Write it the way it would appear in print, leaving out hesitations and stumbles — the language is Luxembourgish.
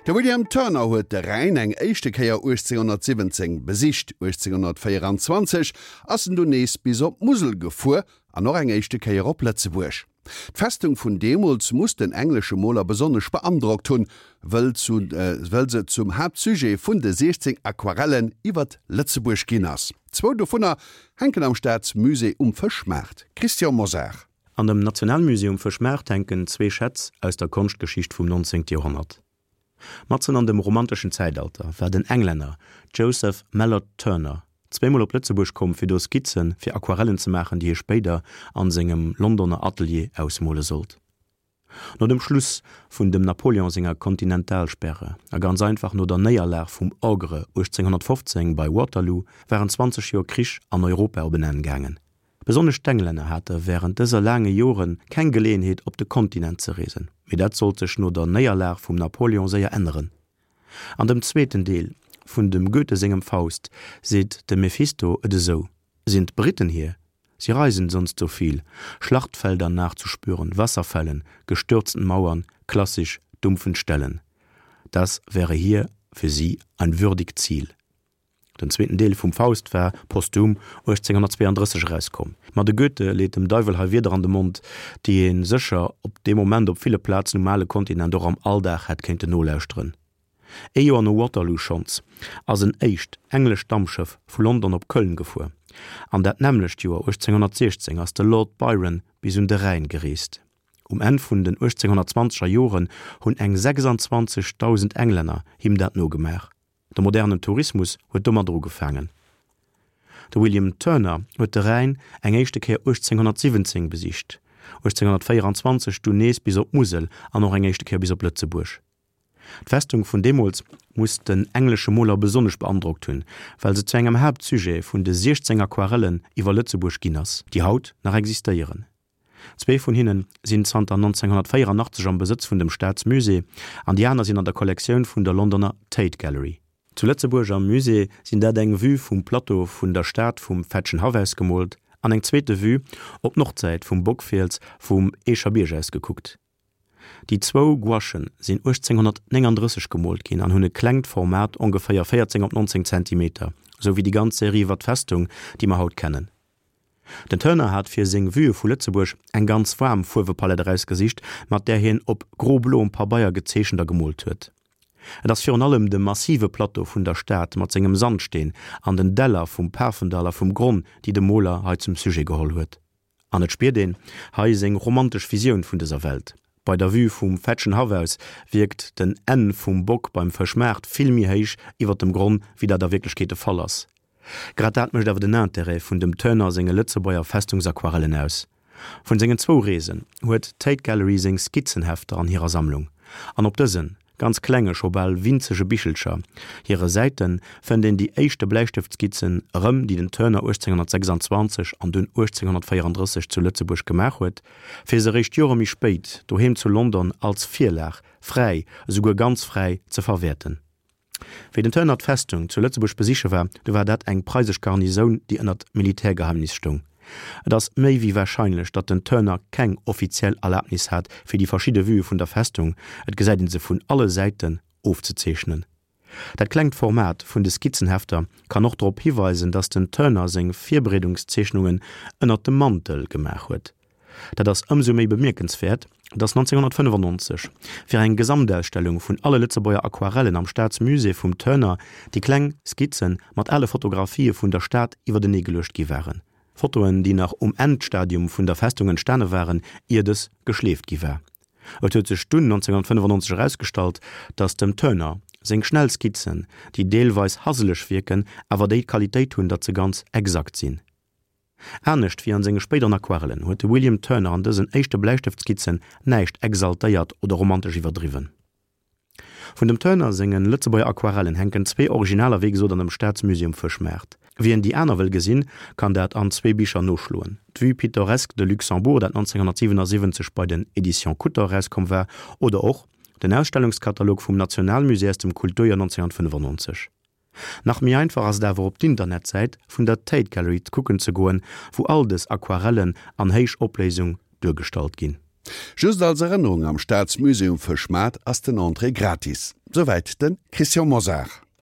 De William Turner huet de Rhäin eng éischte Kéier 1817 besicht. 1824 ass en dunn nees bis op d'Musel gefuer an och eng éischte Kéier op Lëtzebuerg. D'Festung vun deemools muss den englesche Moler besonnesch beandrockt hunn, wëll se zum Haaptsujet vun de 16 Aquarellen iwwert Lëtzebuerg ginn ass. Zwou dovunner hänken am Staatsmusée um Fëschmaart. Christian Mosar. An dem Nationalmusée um Fëschmaart hänken zwee Schätz aus der Konschtgeschicht vum 19. Joerhonnert. Matzen an dem romanteschen Zäitalter war den Englänner Joseph Mallord Turner zweemol op Lëtzebuerg komm fir do Skizze fir Aquarellen ze maachen, déi hie spéider an sengem Londoner Atelier ausmole sollt. No dem Schluss vun dem Napoleon senger Kontinentalsperre a ganz einfach no der Néierlag vum Ogre 1815 bei Waterloo waren 20 Joer Krich an Europa op en Enn gaangen. Besonnesch d'Englänner hate wärend dëser laange Jore keng Geleeënheet op de Kontinent ze reesen, mee dat sollt sech no der Néierlag vum Napoleon séier änneren. An dem zweeten Deel vun dem Goethe sengem Faust seet de Mephisto et esou, Sind Briten hier? Sie reisen sonst so viel, Schlachtfelder nachzuspüren, Wasserfällen, gestürzten Mauern, klassisch dumpfen Stellen. Das wäre hier für sie ein würdig Ziel. Den zweeten Deel vum Faust war posthum 1832 erauskomm. Ma de Goethe leet dem Deiwel hei Wierder an de Mond, déi ee sécher op dee Moment op ville Plazen um ale Kontinent och am Alldag hätt kéinten nolauschteren. Ee Joer no Waterloo schonns ass en éischt englescht Dampschëff vu London op Köln gefuer. An dat nämmlecht Joer 1816 ass de Lord Byron bis un de Rhäin gereest. Um Enn vun den 1820er Joren hunn eng 26.000 Englänner him dat nogemaach. De modernen Tourismus huet domadder ugefaangen. De William Turner huet de Rhäin eng éischte Kéier 1817 besicht, 1824 dunn nees bis op d'Musel an och eng éischte Kéier bis op Lëtzebuerg. D'Festung vun deemools muss den englesche Moler besonnesch beandrockt hunn, well se zu engem Haaptsujet vun de 16 Aquarellen iwwer Lëtzebuerg ginn ass, déi haut nach existéieren. Zwee vun hinne sinn zanter 1984 am Besëtz vun dem Staatsmusée an déi aner sinn an der Kollektioun vun der Londoner Tate Gallery. Zu Lëtzebuerg am Musée sinn dat eng Vue vum Plateau vun der Stad vum Fetschenhaff aus gemoolt an eng zweete Vue op d'Nordsäit vum Bockfiels vum Eecher Bierg aus gekuckt. Déi zwou Gouachen sinn 1839 gemoolt ginn an hunn e klengt Format, ongeféier 14 op 19 Zentimeter, sou wéi déi ganz Serie iwwer d'Festung, déi mer haut kennen. Den Turner hat fir seng Vuë vu Lëtzebuerg eng ganz waarm Fuerwepalett erausgesicht, mat där hien op gro-bloem Pabeier gezeechent a gemoolt huet. Et ass virun allem de massive Plateau vun der Stad mat sengem Sandsteen an den Däller vum Pafendall a vum Gronn, déi de Moler hei zum Sujet geholl huet. An et spiert een hei seng romantesch Visioun vun dëser Welt. Bei der Vue vum Fetschenhaff aus wierkt den Enn vum Bock beim Fëschmaart vill méi héich iwwer dem Gronn, wéi dat a Wierklechkeet de Fall ass. Grad dat mécht awer den Interêt vun dem Turner senge Lëtzebuerger Festungsaquarellen aus. Vun sengen zwou Reesen huet d'Tate Gallery seng Skizzenhefter an hirer Sammlung, an op dësen ganz klenge, scho bal winzege Bichelcher hire Säite fënnt een déi éischte Bläistëftskizzen erëm, déi den Turner 1826 an dunn 1834 zu Lëtzebuerg gemaach huet, fir se eréischt Jore méi spéit doheem zu London als Virlag fräi, esouguer ganz fräi, ze verwäerten. Wéi den Turner d'Festung zu Lëtzebuerg besiche war, du war dat eng preisesch Garnisoun, déi ënnert Militärgeheimnis stoung. Et ass méi wéi warscheinlech, datt den Turner keng offiziell Erlabnis hat, fir déi verschidde Vuë vun der Festung, et gesäit een se vun alle Säiten, ofzezeechnen. Dat klengt Format vun de Skizzenhefter kann och drop hiweisen, datt den Turner seng Virbereedungszeechnungen ënnert dem Mantel gemaach huet. Dat ass ëmsou méi bemierkenswäert, datt 1995 fir eng Gesamtausstellung vun alle Lëtzebuerger Aquarellen am Staatsmusée vum Turner déi kleng Skizze mat ale Fotografië vun der Stad iwwertenee geluecht gi waren. Fotoen, déi nach um Endstadium vun der Festung entstane waren, ier dës geschleeft gi war. Et huet sech dunn 1995 erausgestallt, datt dem Turner seng schnell Skizzen, déi deelweis haseleg wierken, awer déi d'Qualitéit hunn, datt se ganz exakt sinn. Anescht wéi an senge spéideren Aquarellen huet de William Turner an dësen éischte Bläistëftskizzen näischt exaltéiert oder romantesch iwwerdriwwen. Vun dem Turner senge Lëtzebuerger Aquarellen hänken zwee Originaler wéi gesot an dem Staatsmusée um Fëschmaart. Wien déi aner wëll gesinn, kann dat an zwee Bicher noschloen, d'Vue pittoresque de Luxembourg, dat 1977 bei den Éditions Kutter erauskomm war, oder och den Ausstellungskatalog vum Nationalmusée aus dem Kulturjoer 1995. Nach méi einfach ass et awer op d'Internetsäit vun der Tate Gallery kucken ze goen, wou all dës Aquarellen an Héichopléisung duergestallt ginn. Just als Erënnerung, Am Staatsmuseum Fëschmaart ass den Entrée gratis. Souwäit de Christian Mosar.